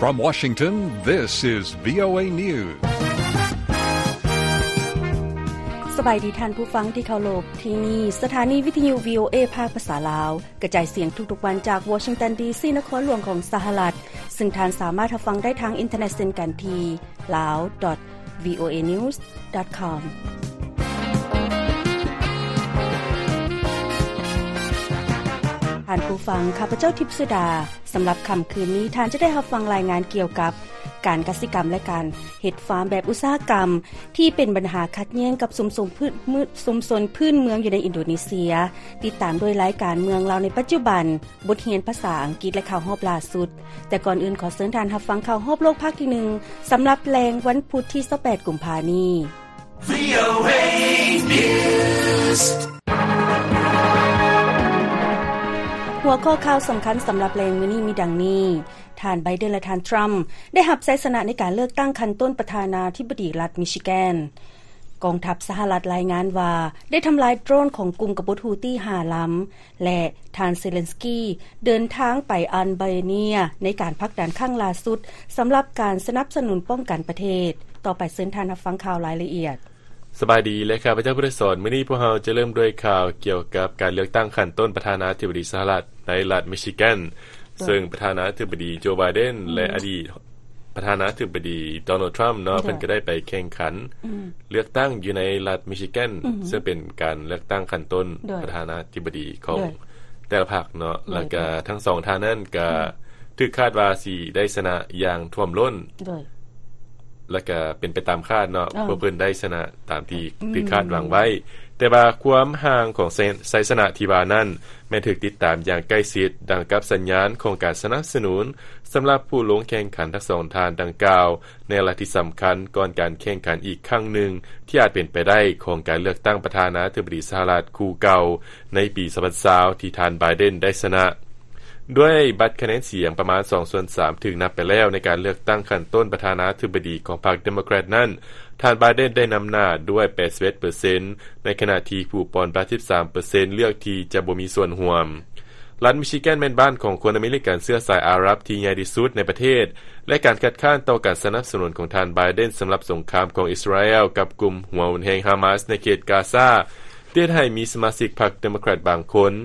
From Washington, this is VOA News. ສະບາຍດີທ່ານຜູ້ຟັງທີ່ເຄົາລົບ, ທີ່ນີ້ສະຖານີວິທະຍຸ VOA ພາກພາສາລາວ ກະຈາຍສຽງທຸກໆວັນຈາກວໍຊິງຕັນ ດີຊີ ນະຄອນຫຼວງຂອງສະຫະລັດ, ຊຶ່ງທ່ານສາມາດຮັບຟັງໄດ້ທາງອິນເຕີເນັດເຊັ່ນກັນທີ່ lawdotvoanews.com. ທ່ານຜູ້ຟັງ, ຂ້າພະເຈົ້າ ທິບສຸດາ. ສຳລັບຄ່ຳຄືນນີ້, ທ່ານຈະໄດ້ຮັບຟັງລາຍງານກ່ຽວກັບການກະສິກຳ ແລະ ການເຮັດຟາມແບບອຸດສາຫະກຳ ທີ່ເປັນບັນຫາຂັດແຍ່ງກັບຊຸມຊົນພື້ນເມືອງ ຊຸມຊົນພື້ນເມືອງຢູ່ໃນອິນໂດເນເຊຍ, ຕິດຕາມດ້ວຍລາຍການເມືອງລາວໃນປັດຈຸບັນ, ບົດຮຽນພາສາອັງກິດ ແລະ ຂ່າວຮອບລ່າສຸດ. ແຕ່ກ່ອນອື່ນ, ຂໍເຊີນທ່ານຮັບຟັງຂ່າວຮອບໂລກພາກທີໜຶ່ງ ສຳລັບແລງວັນພຸດທີຊາວແປດ ກຸມພານີ້. VOA News. ຫົວຂໍ້ຂ່າວສຳຄັນສຳລັບແລງມື້ນີ້ມີດັ່ງນີ້: ທ່ານ ໄບເດັນ ແລະ ທ່ານ ທຣຳ ໄດ້ຮັບໄຊຊະນະໃນການເລືອກຕັ້ງຂັ້ນຕົ້ນປະທານາທິບໍດີລັດມິຊິແກນ. ກອງທັບສະຫະລັດລາຍງານວ່າ ໄດ້ທຳລາຍໂດຣນຂອງກຸ່ມກະບົດຮູ້ຕີຫ້າລຳ ແລະ ທ່ານ ເຊເລັນສກີ ເດີນທາງໄປອັນເບເນຍ ໃນການຜັກດັນຄັ້ງລ່າສຸດ ສຳລັບການສະໜັບສະໜູນປ້ອງກັນປະເທດ. ຕໍ່ໄປເຊີນທ່ານຮັບຟັງຂ່າວລາຍລະອຽດ. ສະບາຍດີ ແລະ ຂ້າພະເຈົ້າ ຜູ້ໄດ້ສອນ. ມື້ນີ້ພວກເຮົາຈະເລີ່ມດ້ວຍຂ່າວກ່ຽວກັບການເລືອກຕັ້ງຂັ້ນຕົ້ນປະທານາທິບໍດີສະຫະລັດໃນລັດມິຊິແກນ, ໂດຍ ເຊິ່ງປະທານາທິບໍດີ ໂຈ ໄບເດັນ ອືມ ແລະ ອະດີດປະທານາທິບໍດີ ໂດນັລ ທຣຳ ເນາະ, ໂດຍ ເພິ່ນກໍໄດ້ໄປແຂ່ງຂັນ ອືມ ເລືອກຕັ້ງຢູ່ໃນລັດມິຊິແກນ, ອືມ ເຊິ່ງເປັນການເລືອກຕັ້ງຂັ້ນຕົ້ນ ໂດຍ ປະທານາທິບໍດີຂອງ ໂດຍ ແຕ່ລະພັກເນາະ, ໂດຍ ແລ້ວກະທັງສອງທ່ານນັ້ນກະ ອືມ ຖືກຄາດວ່າຊິໄດ້ຊະນະຢ່າງຖ້ວມລົ້ນ, ໂດຍ ແລ້ວກະເປັນໄປຕາມຄາດເນາະ, ເອີ ພວກເພິ່ນໄດ້ຊະນະຕາມທີ່ ອືມ ຖືກຄາດຫວັງໄວ້. ແຕ່ວ່າຄວາມຫ່າງຂອງໄຊ ໄຊຊະນະທີ່ວ່ານັ້ນ ແມ່ນຖືກຕິດຕາມຢ່າງໃກ້ຊິດ, ດັ່ງກັບສັນຍານຂອງການສະໜັບສະໜູນສຳລັບຜູ້ລົງແຂ່ງຂັນທັງສອງທ່ານດັ່ງກ່າວ ໃນລັດທີ່ສຳຄັນກ່ອນການແຂ່ງຂັນອີກຄັ້ງໜຶ່ງ ທີ່ອາດເປັນໄປໄດ້ຂອງການເລືອກຕັ້ງປະທານາທິບໍດີສະຫະລັດຄູ່ເກົ່າໃນປີສອງພັນຊາວ ທີ່ທ່ານ ໄບເດັນ ໄດ້ຊະນະ. ດ້ວຍບັດຄະແນນສຽງປະມານສອງສ່ວນສາມຖືກນັບໄປແລ້ວໃນການເລືອກຕັ້ງຂັ້ນຕົ້ນປະທານາທິບໍດີຂອງພັກເດໂມແຄຣດນັ້ນ, ທ່ານ ໄບເດັນ ໄດ້ນຳໜ້າດ້ວຍແປດສິບເອັດເປີເຊັນ ໃນຂະນະທີ່ຜູ້ປ່ອນບັດສິບສາມເປີເຊັນເລືອກທີ່ຈະບໍ່ມີສ່ວນຮ່ວມ. ລັດມິຊິແກນແມ່ນບ້ານຂອງຄົນອາເມລິກັນເຊື້ອສາຍອາຣັບທີ່ໃຫຍ່ທີ່ສຸດໃນປະເທດ ແລະ ການຄັດຄ້ານຕໍ່ການສະໜັບສະໜູນຂອງທ່ານ ໄບເດັນ ສຳລັບສົງຄາມຂອງອິດສະຣາແອລກັບກຸ່ມຫົວຮຸນແຮງຮາມາສໃນເຂດກາຊາ ເຮັດໃຫ້ມີສະມາຊິກພັກເດໂມແຄຣດບາງຄົນ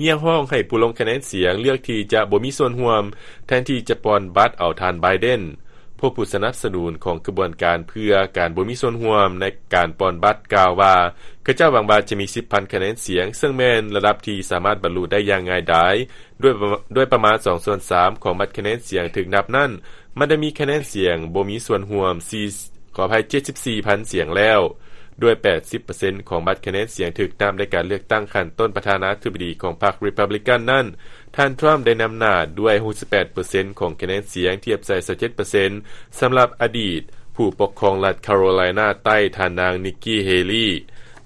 ຮຽກຮ້ອງໃຫ້ຜູ້ລົງຄະແນນສຽງເລືອກທີ່ຈະບໍ່ມີສ່ວນຮ່ວມ ແທນທີ່ຈະປ່ອນບັດເອົາທ່ານ ໄບເດັນ. ພວກຜູ້ສະໜັບສະໜູນຂອງຂະບວນການເພື່ອການບໍ່ມີສ່ວນຮ່ວມໃນການປ່ອນບັດກ່າວວ່າ ເຂົາເຈົ້າຫວັງວ່າຈະມີສິບພັນຄະແນນສຽງ, ເຊິ່ງແມ່ນລະດັບທີ່ສາມາດບັນລຸໄດ້ຢ່າງງ່າຍດາຍ ດ້ວຍປະ ດ້ວຍປະມານສອງສ່ວນສາມຂອງບັດຄະແນນສຽງຖືກນັບນັ້ນ, ມັນໄດ້ມີຄະແນນສຽງບໍ່ມີສ່ວນຮ່ວມສີ່ ຂໍອະໄພ ເຈັດສິບສີ່ພັນສຽງແລ້ວ. ດ້ວຍແປດສິບເປີເຊັນຂອງບັດຄະແນນສຽງຖືກນັບໃນການເລືອກຕັ້ງຂັ້ນຕົ້ນປະທານາທິບໍດີຂອງພັກຣີພັບລິກັນນັ້ນ, ທ່ານ ທຣຳ ໄດ້ນຳໜ້າດ້ວຍຫົກສິບແປດເປີເຊັນຂອງຄະແນນສຽງ ທຽບໃສ່ຊາວເຈັດເປີເຊັນ ສຳລັບອະດີດຜູ້ປົກຄອງລັດຄາໂຣໄລນາໃຕ້ ທ່ານນາງ ນິກກີ້ ເຮລີ.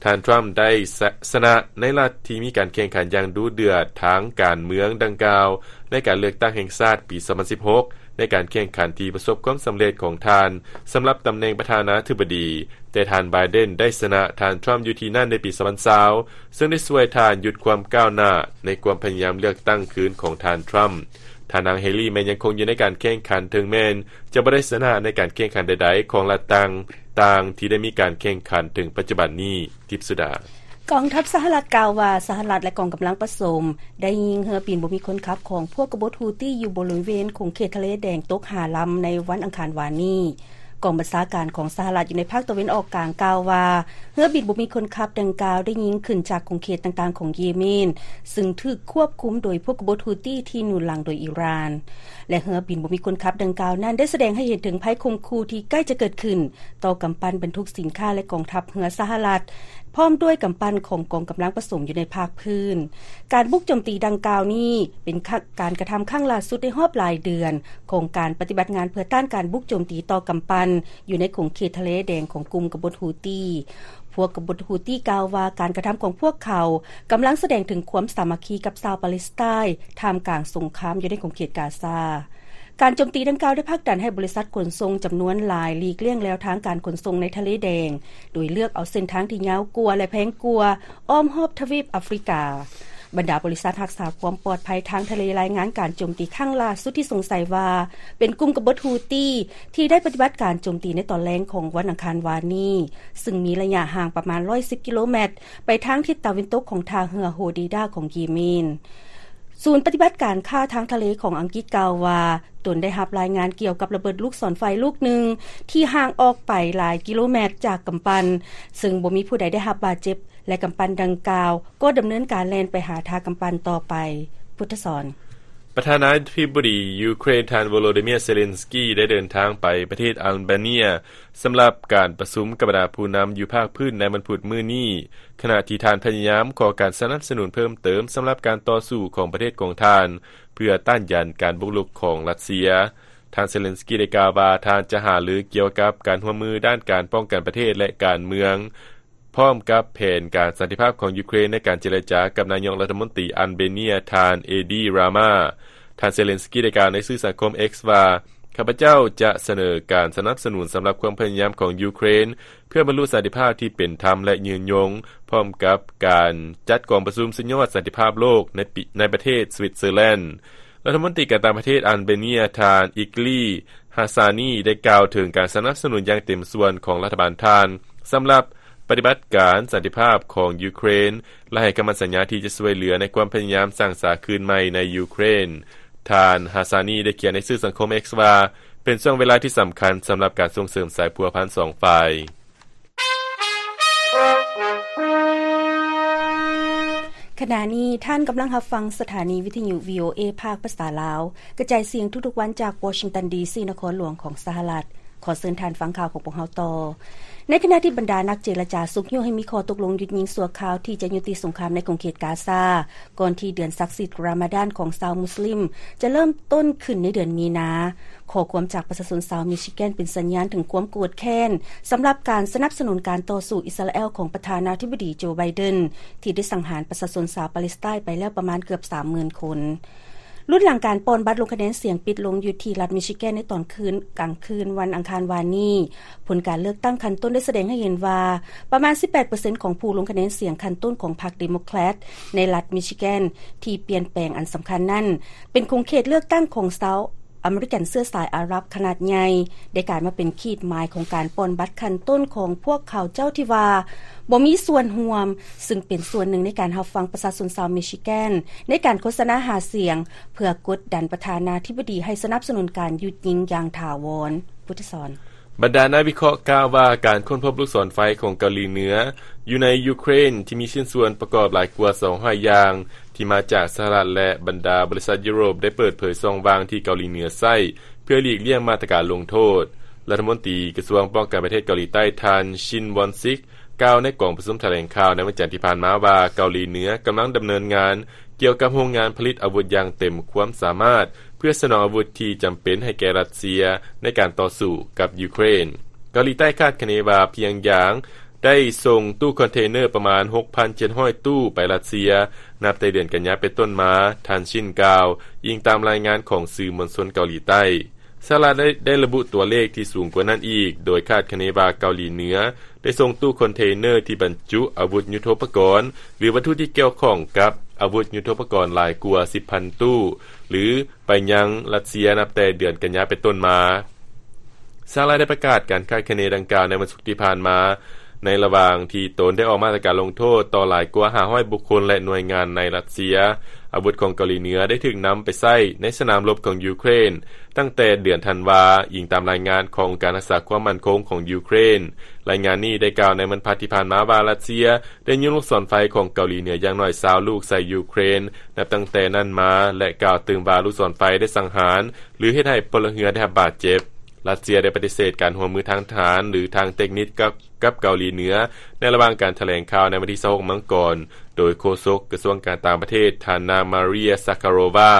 ທ່ານ ທຣຳ ໄດ້ຊະ ຊະນະໃນລັດທີ່ມີການແຂ່ງຂັນຢ່າງດຸເດືອດທາງການເມືອງດັ່ງກ່າວ ໃນການເລືອກຕັ້ງແຫ່ງຊາດປີສອງພັນສິບຫົກ ໃນການແຂ່ງຂັນທີ່ປະສົບຄວາມສຳເລັດຂອງທ່ານສຳລັບຕຳແໜ່ງປະທານາທິບໍດີ, ແຕ່ທ່ານ ໄບເດັນ ໄດ້ຊະນະທ່ານ ທຣຳ ຢູ່ທີ່ນັ້ນໃນປີສອງພັນຊາວ ເຊິ່ງໄດ້ຊ່ວຍທ່ານຢຸດຄວາມກ້າວໜ້າໃນຄວາມພະຍາຍາມເລືອກຕັ້ງຄືນຂອງທ່ານ ທຣຳ. ທ່ານນາງ ເຮລີ ແມ່ນຍັງຄົງຢູ່ໃນການແຂ່ງຂັນ, ເຖິງແມ່ນຈະບໍ່ໄດ້ຊະນະໃນການແຂ່ງຂັນໃດໆຂອງລັດຕ່າງໆທີ່ໄດ້ມີການແຂ່ງຂັນເຖິງປັດຈຸບັນນີ້. ທິບສຸດາ. ກອງທັບສະຫະລັດກ່າວວ່າ ສະຫະລັດ ແລະ ກອງກຳລັງປະສົມ ໄດ້ຍິງເຮືອບິນບໍ່ມີຄົນຂັບຂອງພວກກະບົດຮູ້ຕີຢູ່ບໍລິເວນຂົງເຂດທະເລແດງຕົກຫ້າລຳໃນວັນອັງຄານວານນີ້. ກອງບັນຊາການຂອງສະຫະລັດຢູ່ໃນພາກຕາເວັນອອກກາງກ່າວວ່າ ເຮືອບິນບໍ່ມີຄົນຂັບດັ່ງກ່າວໄດ້ຍິງຂຶ້ນຈາກຂົງເຂດຕ່າງໆຂອງເຢເມນ ຊຶ່ງຖືກຄວບຄຸມໂດຍພວກກະບົດຮູ້ຕີທີ່ໜູນຫຼັງໂດຍອີຣານ ແລະ ເຮືອບິນບໍ່ມີຄົນຂັບດັ່ງກ່າວນັ້ນໄດ້ສະແດງໃຫ້ເຫັນເຖິງໄພຂົ່ມຂູ່ທີ່ໃກ້ຈະເກີດຂຶ້ນຕໍ່ກຳປັ່ນບັນທຸກສິນຄ້າ ແລະ ກອງທັບເຮືອສະຫະລັດ ພ້ອມດ້ວຍກຳປັ່ນຂອງກອງກຳລັງປະສົມຢູ່ໃນພາກພື້ນ. ການບຸກໂຈມຕີດັ່ງກ່າວນີ້ເປັນ ການກະທຳຄັ້ງລ່າສຸດໃນຮອບຫຼາຍເດືອນຂອງການປະຕິບັດງານເພື່ອຕ້ານການບຸກໂຈມຕີຕໍ່ກຳປັ່ນຢູ່ໃນຂົງເຂດທະເລແດງຂອງກຸ່ມກະບົດຮູ້ຕີ. ພວກກະບົດຮູ້ຕີກ່າວວ່າ ການກະທຳຂອງພວກເຂົາກຳລັງສະແດງເຖິງຄວາມສາມັກຄີກັບຊາວປາເລສໄຕນ໌ ທ່າມກາງສົງຄາມຢູ່ໃນຂົງເຂດກາຊາ. ການໂຈມຕີດັ່ງກ່າວໄດ້ຜັກດັນໃຫ້ບໍລິສັດຂົນສົ່ງຈຳນວນຫຼາຍຫຼີກລ່ຽງແລວທາງການຂົນສົ່ງໃນທະເລແດງ ໂດຍເລືອກເອົາເສັ້ນທາງທີ່ຍາວກວ່າ ແລະ ແພງກວ່າ ອ້ອມຮອບທະວີບອາຟຣິກາ. ບັນດາບໍລິສັດຮັກສາຄວາມປອດໄພທາງທະເລລາຍງານການໂຈມຕີຄັ້ງລ່າສຸດທີ່ສົງໄສວ່າເປັນກຸ່ມກະບົດຮູ້ຕີ ທີ່ໄດ້ປະຕິບັດການໂຈມຕີໃນຕອນແລງຂອງວັນອັງຄານວານນີ້, ຊຶ່ງມີໄລຍະຫ່າງປະມານຮ້ອຍສິບກິໂລແມັດ ໄປທາງທິດຕາເວັນຕົກຂອງທ່າເຮືອໂຮດີດາຂອງເຢເມນ. ສູນປະຕິບັດການຂ້າທາງທະເລຂອງອັງກິດກ່າວວ່າ ຕົນໄດ້ຮັບລາຍງານກ່ຽວກັບລະເບີດລູກສອນໄຟລູກໜຶ່ງ ທີ່ຫ່າງອອກໄປຫຼາຍກິໂລແມັດຈາກກຳປັ່ນ, ເຊິ່ງບໍ່ມີຜູ້ໃດໄດ້ຮັບບາດເຈັບ ແລະ ກຳປັ່ນດັ່ງກ່າວກໍດຳເນີນການແລ່ນໄປຫາທ່າກຳປັ່ນຕໍ່ໄປ. ພຸດທະສອນ. ປະທານາທິບໍດີຢູເຄຣນ ທ່ານໂວໂລດີເມຍ ເຊເລັນສກີ ໄດ້ເດີນທາງໄປປະເທດອັລເບເນຍ ສຳລັບການປະຊຸມກັບບັນດາຜູ້ນຳຢູ່ພາກພື້ນໃນວັນພຸດມື້ນີ້, ຂະນະທີ່ທ່ານພະຍາຍາມຂໍການສະໜັບສະໜູນເພີ່ມເຕີມສຳລັບການຕໍ່ສູ້ຂອງປະເທດຂອງທ່ານ ເພື່ອຕ້ານຢານການບຸກລຸກຂອງຣັດເຊຍ. ທ່ານເຊເລັນສກີໄດ້ກ່າວວ່າ ທ່ານຈະຫາລືກ່ຽວກັບການຮ່ວມມືດ້ານການປ້ອງກັນປະເທດ ແລະ ການເມືອງ, ພ້ອມກັບແຜນການສັນຕິພາບຂອງຢູເຄຣນໃນການເຈລະຈາກັບນາຍົກລັດຖະມົນຕີອັນເບເນຍ ທ່ານ ເອດີ ຣາມາ. ທ່ານເຊເລັນສກີໄດ້ກ່າວໃນສື່ສັງຄົມ X ວ່າ, ຂ້າພະເຈົ້າຈະສະເໜີການສະໜັບສະໜູນສຳລັບຄວາມພະຍາຍາມຂອງຢູເຄຣນ ເພື່ອບັນລຸສັນຕິພາບທີ່ເປັນທຳ ແລະ ຍືນຍົງ, ພ້ອມກັບການຈັດກອງປະຊຸມສຸດຍອດສັນຕິພາບໂລກໃນປີ, ໃນປະເທດສະວິດເຊີແລນ. ລັດຖະມົນຕີການຕ່າງປະເທດອັນເບເນຍ ທ່ານ ອິກລີ ຮາຊານີ ໄດ້ກ່າວເຖິງການສະໜັບສະໜູນຢ່າງເຕັມສ່ວນຂອງລັດຖະບານທ່ານ ສຳລັບປະຕິບັດການສັນຕິພາບຂອງຢູເຄຣນ ແລະ ໃຫ້ຄຳໝັ້ນສັນຍາທີ່ຈະຊ່ວຍເຫຼືອໃນຄວາມພະຍາຍາມສ້າງສາຄືນໃໝ່ໃນຢູເຄຣນ. ທ່ານ ຮາຊານີ ໄດ້ຂຽນໃນສື່ສັງຄົມ X ວ່າ, ເປັນຊ່ວງເວລາທີ່ສຳຄັນສຳລັບການສົ່ງເສີມສາຍພົວພັນສອງຝ່າຍ. ຂະນະນີ້ທ່ານກຳລັງຮັບຟັງສະຖານີວິທະຍຸ ວີໂອເອ ພາກພາສາລາວ, ກະຈາຍສຽງທຸກໆວັນຈາກວໍຊິງຕັນ ດີຊີ ນະຄອນຫຼວງຂອງສະຫະລັດ. ຂໍເຊີນທ່ານຟັງຂ່າວຂອງພວກເຮົາຕໍ່. ໃນຂະນະທີ່ບັນດານັກເຈລະຈາຊຸກຍູ້ໃຫ້ມີຂໍ້ຕົກລົງຢຸດຍິງຊົ່ວຄາວທີ່ຈະຍຸຕິສົງຄາມໃນຂົງເຂດກາຊາ, ກ່ອນທີ່ເດືອນສັກສິດຣາມາດານຂອງຊາວມຸສລິມຈະເລີ່ມຕົ້ນຂຶ້ນໃນເດືອນມີນາ. ຂໍ້ຄວາມຈາກປະຊາຊົນຊາວມິຊິແກນເປັນສັນຍານເຖິງຄວາມໂກດແຄ້ນສຳລັບການສະໜັບສະໜູນການຕໍ່ສູ້ອິດສະຣາແອລຂອງປະທານາທິບໍດີໂຈ ໄບເດັນ ທີ່ໄດ້ສັງຫານປະຊາຊົນຊາວປາເລສໄຕນ໌ໄປແລ້ວປະມານເກືອບສາມໝື່ນຄົນ. ລຸນຫຼັງການປ່ອນບັດລົງຄະແນນສຽງປິດລົງຢູ່ທີ່ລັດມິຊິແກນໃນຕອນຄືນ, ກາງຄືນວັນອັງຄານວານນີ້, ຜົນການເລືອກຕັ້ງຂັ້ນຕົ້ນໄດ້ສະແດງໃຫ້ເຫັນວ່າ ປະມານສິບແປດເປີເຊັນຂອງຜູ້ລົງຄະແນນສຽງຂັ້ນຕົ້ນຂອງພັກເດໂມແຄຣດໃນລັດມິຊິແກນທີ່ປ່ຽນແປງອັນສຳຄັນນັ້ນ ເປັນຂົງເຂດເລືອກຕັ້ງຂອງຊາວອາເມລິກັນເຊື້ອສາຍອາຣັບຂະໜາດໃຫຍ່ ໄດ້ກາຍມາເປັນຂີດໝາຍຂອງການປ່ອນບັດຂັ້ນຕົ້ນຂອງພວກເຂົາເຈົ້າທີ່ວ່າບໍ່ມີສ່ວນຮ່ວມ, ຊຶ່ງເປັນສ່ວນໜຶ່ງໃນການຮັບຟັງປະຊາຊົນຊາວມິຊິແກນໃນການໂຄສະນາຫາສຽງ ເພື່ອກົດດັນປະທານາທິບໍດີໃຫ້ສະໜັບສະໜູນການຢຸດຍິງຢ່າງຖາວອນ. ພຸດທະສອນ. ບັນດານັກວິເຄາະກ່າວວ່າ ການຄົ້ນພົບລູກສອນໄຟຂອງເກົາຫຼີເໜືອຢູ່ໃນຢູເຄຣນ ທີ່ມີຊິ້ນສ່ວນປະກອບຫຼາຍກວ່າສອງຮ້ອຍຢ່າງ ທີ່ມາຈາກສະຫະລັດ ແລະ ບັນດາບໍລິສັດຢູໂຣບ ໄດ້ເປີດເຜີຍຊ່ອງວ່າງທີ່ເກົາຫຼີເໜືອໃຊ້ ເພື່ອຫຼີກລ່ຽງມາດຕະການລົງໂທດ. ລັດຖະມົນຕີກະຊວງປ້ອງກັນປະເທດເກົາຫຼີໃຕ້ ທ່ານ ຊິນ ວອນຊິກ ກ່າວໃນກອງປະຊຸມຖະແຫຼງຂ່າວໃນວັນຈັນທີ່ຜ່ານມາວ່າ ເກົາຫຼີເໜືອກຳລັງດຳເນີນງານ ກ່ຽວກັບໂຮງງານຜະລິດອາວຸດຢ່າງເຕັມຄວາມສາມາດ ເພື່ອສະໜອງອາວຸດທີ່ຈຳເປັນໃຫ້ແກ່ຣັດເຊຍໃນການຕໍ່ສູ້ກັບຢູເຄຣນ. ເກົາຫຼີໃຕ້ຄາດຄະເນວ່າພຽງຢາງໄດ້ສົ່ງຕູ້ຄອນເທນເນີປະມານຫົກພັນເຈັດຮ້ອຍຕູ້ໄປຣັດເຊຍ ນັບແຕ່ເດືອນກັນຍາເປັນຕົ້ນມາ, ທ່ານຊິນກ່າວ, ອີງຕາມລາຍງານຂອງສື່ມວນຊົນເກົາຫຼີໃຕ້. ສະຫະລັດໄດ້ ໄດ້ລະບຸຕົວເລກທີ່ສູງກວ່ານັ້ນອີກ, ໂດຍຄາດຄະເນວ່າເກົາຫຼີເໜືອໄດ້ສົ່ງຕູ້ຄອນເທນເນີທີ່ບັນຈຸອາວຸດຍຸດໂທປະກອນ ຫຼື ວັດຖຸທີ່ກ່ຽວຂ້ອງກັບອາວຸດຍຸດໂທປະກອນຫຼາຍກວ່າສິບພັນຕູ້ ຫຼື ໄປຍັງຣັດເຊຍນັບແຕ່ເດືອນກັນຍາເປັນຕົ້ນມາ. ສະຫະລັດໄດ້ປະກາດການຄາດຄະເນດັ່ງກ່າວໃນວັນສຸກທີ່ຜ່ານມາ, ໃນລະຫວ່າງທີ່ຕົນໄດ້ອອກມາດຕະການລົງໂທດຕໍ່ຫຼາຍກວ່າຫ້າຮ້ອຍບຸກຄົນ ແລະ ໜ່ວຍງານໃນຣັດເຊຍ. ອາວຸດຂອງເກົາຫຼີເໜືອໄດ້ຖືກນຳໄປໃຊ້ໃນສະໜາມລົບຂອງຢູເຄຣນ ຕັ້ງແຕ່ເດືອນທັນວາ, ອີງຕາມລາຍງານຂອງອົງການຮັກສາຄວາມໝັ້ນຄົງຂອງຢູເຄຣນ. ລາຍງານນີ້ໄດ້ກ່າວໃນວັນພະທີ່ຜ່ານມາວ່າ ຣັດເຊຍໄດ້ຍິງລູກສອນໄຟຂອງເກົາຫຼີເໜືອຢ່າງໜ້ອຍຊາວລູກໃສ່ຢູເຄຣນ ນັບຕັ້ງແຕ່ນັ້ນມາ ແລະ ກ່າວຕື່ມວ່າລູກສອນໄຟໄດ້ສັງຫານ ຫຼື ເຮັດໃຫ້ພົນລະເຮືອນໄດ້ຮັບບາດເຈັບ. ຣັດເຊຍໄດ້ປະຕິເສດການຮ່ວມມືທາງທະຫານ ຫຼື ທາງເຕັກນິກກັບ ກັບເກົາຫຼີເໜືອ ໃນລະຫວ່າງການຖະແຫຼງຂ່າວໃນວັນທີຊາວຫົກມັງກອນ ໂດຍໂຄສົກກະຊວງການຕ່າງປະເທດ ທ່ານນາງ ມາເຣຍ ຊາຄາໂຣວາ.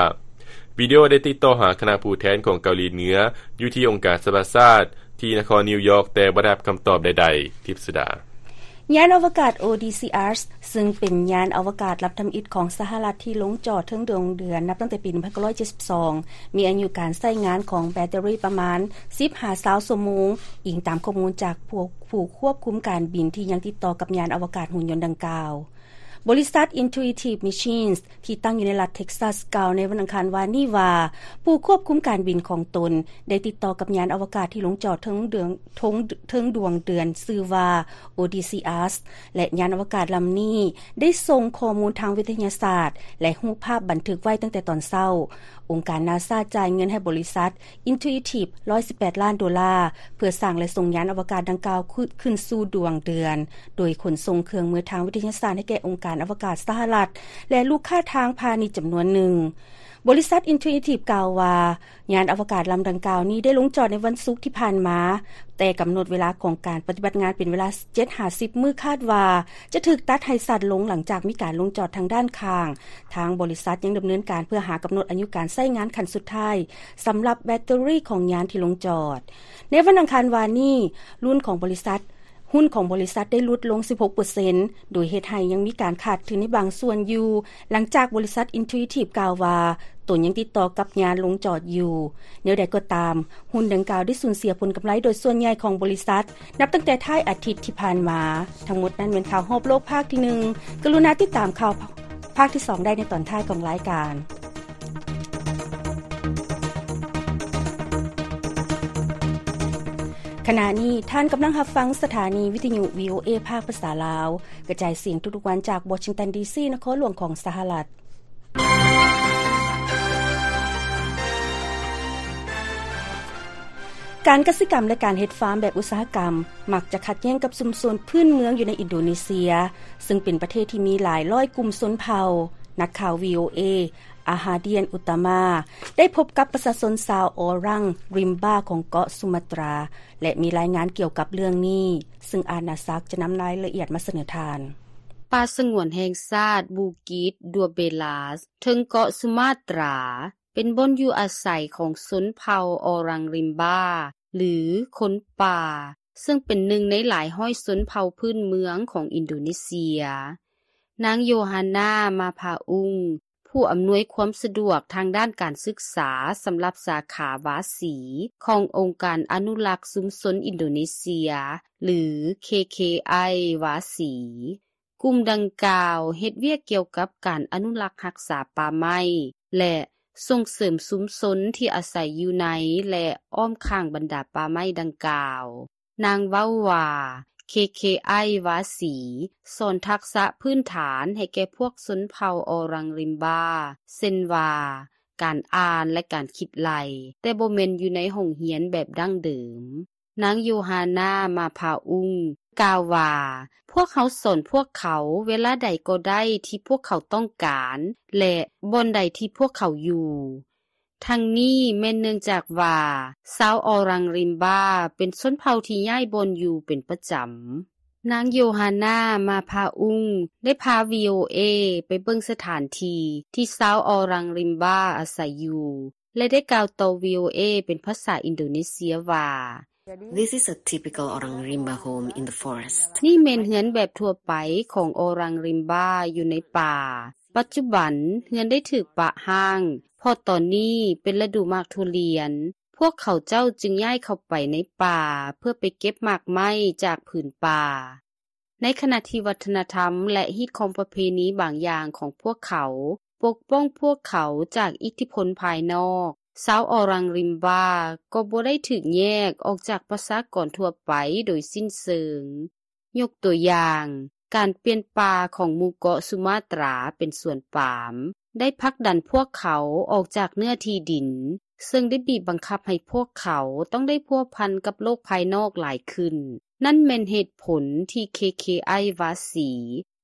ວິດີໂອໄດ້ຕິດຕໍ່ຫາຄະນະຜູ້ແທນຂອງເກົາຫຼີເໜືອ ຢູ່ທີ່ອົງການສະຫະປະຊາຊາດ ທີ່ນະຄອນນິວຢອກ ແຕ່ບໍ່ໄດ້ຮັບຄຳຕອບໃດໆ. ທິບສຸດາ. ຍານອະວະກາດ ໂອດີຊີ ອາສ ຊຶ່ງເປັນຍານອະວະກາດລຳທຳອິດຂອງສະຫະລັດທີ່ລົງຈອດເທິງດວງເດືອນນັບຕັ້ງແຕ່ປີໜຶ່ງພັນເກົ້າຮ້ອຍເຈັດສິບສອງ ມີອາຍຸການໃຊ້ງານຂອງແບັດເຕີຣີປະມານສິບຫາຊາວຊົ່ວໂມງ, ອີງຕາມຂໍ້ມູນຈາກພວກຜູ້ຄວບຄຸມການບິນທີ່ຍັງຕິດຕໍ່ກັບຍານອະວະກາດຫຸ່ນຍົນດັ່ງກ່າວ. ບໍລິສັດ Intuitive Machines ທີ່ຕັ້ງຢູ່ໃນລັດ Texas ກ່າວໃນວັນອັງຄານວານນີ້ວ່າ ຜູ້ຄວບຄຸມການບິນຂອງຕົນໄດ້ຕິດຕໍ່ກັບຍານອະວະກາດທີ່ລົງຈອດເທິງເດືອນ ເທິງ ເທິງດວງເດືອນຊື່ວ່າ Odysseus ແລະ ຍານອະວະກາດລຳນີ້ໄດ້ສົ່ງຂໍ້ມູນທາງວິທະຍາສາດ ແລະ ຮູບພາບບັນທຶກໄວ້ຕັ້ງແຕ່ຕອນເຊົ້າ. ອົງການ NASA ຈ່າຍເງິນໃຫ້ບໍລິສັດ Intuitive ຮ້ອຍສິບແປດລ້ານໂດລາ ເພື່ອສ້າງ ແລະ ສົ່ງຍານອະວະກາດດັ່ງກ່າວ ຂຶ້ນ ຂຶ້ນສູ່ດວງເດືອນ ໂດຍຂົນສົ່ງເຄື່ອງມືທາງວິທະຍາສາດໃຫ້ແກ່ອົງການອະວະກາດສະຫະລັດ ແລະ ລູກຄ້າທາງພານິດຈຳນວນໜຶ່ງ. ບໍລິສັດ Intuitive ກ່າວວ່າ ຍານອະວະກາດລຳດັ່ງກ່າວນີ້ໄດ້ລົງຈອດໃນວັນສຸກທີ່ຜ່ານມາ, ແຕ່ກຳນົດເວລາຂອງການປະຕິບັດງານເປັນເວລາເຈັດຫາສິບມື້, ຄາດວ່າຈະຖືກຕັດໃຫ້ສັ້ນລົງຫຼັງຈາກມີການລົງຈອດທາງດ້ານຂ້າງ. ທາງບໍລິສັດຍັງດຳເນີນການເພື່ອຫາກຳນົດອາຍຸການໃຊ້ງານຂັ້ນສຸດທ້າຍ ສຳລັບແບັດເຕີຣີຂອງຍານທີ່ລົງຈອດ. ໃນວັນອັງຄານວານນີ້, ຮຸ້ນຂອງບໍລິສັດ, ຮຸ້ນຂອງບໍລິສັດໄດ້ຫຼຸດລົງສິບຫົກເປີເຊັນ ໂດຍເຮັດໃຫ້ຍັງມີການຂາດທຶນໃນບາງສ່ວນຢູ່, ຫຼັງຈາກບໍລິສັດ Intuitive ກ່າວວ່າ ຕົນຍັງຕິດຕໍ່ກັບຍານລົງຈອດຢູ່. ແນວໃດກໍຕາມ, ຮຸ້ນດັ່ງກ່າວໄດ້ສູນເສຍຜົນກຳໄລໂດຍສ່ວນໃຫຍ່ຂອງບໍລິສັດ ນັບຕັ້ງແຕ່ທ້າຍອາທິດທີ່ຜ່ານມາ. ທັງໝົດນັ້ນແມ່ນຂ່າວຮອບໂລກພາກທີໜຶ່ງ. ກະລຸນາຕິດຕາມຂ່າວພາກທີສອງໄດ້ໃນຕອນທ້າຍຂອງລາຍການ. ຂະນະນີ້ທ່ານກຳລັງຮັບຟັງສະຖານີວິທະຍຸ VOA ພາກພາສາລາວ ກະຈາຍສຽງທຸກໆວັນຈາກ Washington D C ນະຄອນຫຼວງຂອງສະຫະລັດ. ການກະສິກຳ ແລະ ການເຮັດຟາມແບບອຸດສາຫະກຳ ມັກຈະຂັດແຍ້ງກັບຊຸມຊົນພື້ນເມືອງຢູ່ໃນອິນໂດເນເຊຍ, ເຊິ່ງເປັນປະເທດທີ່ມີຫຼາຍຮ້ອຍກຸ່ມຊົນເຜົ່າ. ນັກຂ່າວ VOA Ahadian Utama ໄດ້ພົບກັບປະຊາຊົນຊາວ Orang Rimba ຂອງເກາະສຸມາຕຣາ ແລະ ມີລາຍງານກ່ຽວກັບເລື່ອງນີ້, ເຊິ່ງອານາສັກຈະນຳລາຍລະອຽດມາສະເໜີທ່ານ. ປ່າສະຫງວນແຫ່ງຊາດບູກິດ Dua Belas ເທິງເກາະສຸມາຕຣາ ເປັນບ່ອນຢູ່ອາໄສຂອງຊົນເຜົ່າ Orang Rimba ຫຼື ຄົນປ່າ, ເຊິ່ງເປັນໜຶ່ງໃນຫຼາຍຮ້ອຍຊົນເຜົ່າພື້ນເມືອງຂອງອິນໂດເນເຊຍ. ນາງ Yohana Mapaung ຜູ້ອຳນວຍຄວາມສະດວກທາງດ້ານການສຶກສາສຳລັບສາຂາວາສີ ຂອງອົງການອະນຸລັກຊຸມຊົນອິນໂດເນເຊຍ ຫຼື K K I ວາສີ. ກຸ່ມດັ່ງກ່າວເຮັດວຽກກ່ຽວກັບການອະນຸລັກຮັກສາປ່າໄມ້ ແລະ ສົ່ງເສີມຊຸມຊົນທີ່ອາໄສຢູ່ໃນ ແລະ ອ້ອມຂ້າງບັນດາປ່າໄມ້ດັ່ງກ່າວ. ນາງເວົ້າວ່າ K K I ວາສີ ສອນທັກສະພື້ນຖານໃຫ້ແກ່ພວກຊົນເຜົ່າ Orang Rimba ເຊັ່ນວ່າ ການອ່ານ ແລະ ການຄິດໄລ່, ແຕ່ບໍ່ແມ່ນຢູ່ໃນຫ້ອງຮຽນແບບດັ້ງເດີມ. ນາງ Yohana Mapaung ກ່າວວ່າ ພວກເຮົາສອນພວກເຂົາເວລາໃດກໍໄດ້ທີ່ພວກເຂົາຕ້ອງການ ແລະ ບ່ອນໃດທີ່ພວກເຂົາຢູ່. ທັງນີ້ແມ່ນເນື່ອງຈາກວ່າ ຊາວ Orang Rimba ເປັນຊົນເຜົ່າທີ່ຍ້າຍບ່ອນຢູ່ເປັນປະຈຳ. ນາງ Yohana Mapaung ໄດ້ພາ VOA ໄປເບິ່ງສະຖານທີ່ທີ່ຊາວ Orang Rimba ອາໄສຢູ່ ແລະ ໄດ້ກ່າວຕໍ່ VOA ເປັນພາສາອິນໂດເນເຊຍວ່າ This is a typical Orang Rimba home in the forest. ນີ້ແມ່ນເຮືອນແບບທົ່ວໄປຂອງ Orang Rimba ຢູ່ໃນປ່າ. ປັດຈຸບັນເຮືອນໄດ້ຖືກປະຮ້າງ ເພາະຕອນນີ້ເປັນລະດູໝາກທຸລຽນ. ພວກເຂົາເຈົ້າຈຶ່ງຍ້າຍເຂົ້າໄປໃນປ່າເພື່ອໄປເກັບໝາກໄມ້ຈາກຜືນປ່າ. ໃນຂະນະທີ່ວັດທະນະທຳ ແລະ ຮີດຄອງປະເພນີບາງຢ່າງຂອງພວກເຂົາ ປົກປ້ອງພວກເຂົາຈາກອິດທິພົນພາຍນອກ, ຊາວ Orang Rimba ກໍບໍ່ໄດ້ຖືກແຍກອອກຈາກປະຊາກອນທົ່ວໄປໂດຍສິ້ນເຊີງ. ຍົກຕົວຢ່າງ, ການປ່ຽນປ່າຂອງໝູ່ເກາະສຸມາຕຣາເປັນສວນປາມ ໄດ້ຜັກດັນພວກເຂົາອອກຈາກເນື້ອທີ່ດິນ, ເຊິ່ງໄດ້ບີບບັງຄັບໃຫ້ພວກເຂົາຕ້ອງໄດ້ພົວພັນກັບໂລກພາຍນອກຫຼາຍຂຶ້ນ. ນັ້ນແມ່ນເຫດຜົນທີ່ K K I ວາສີ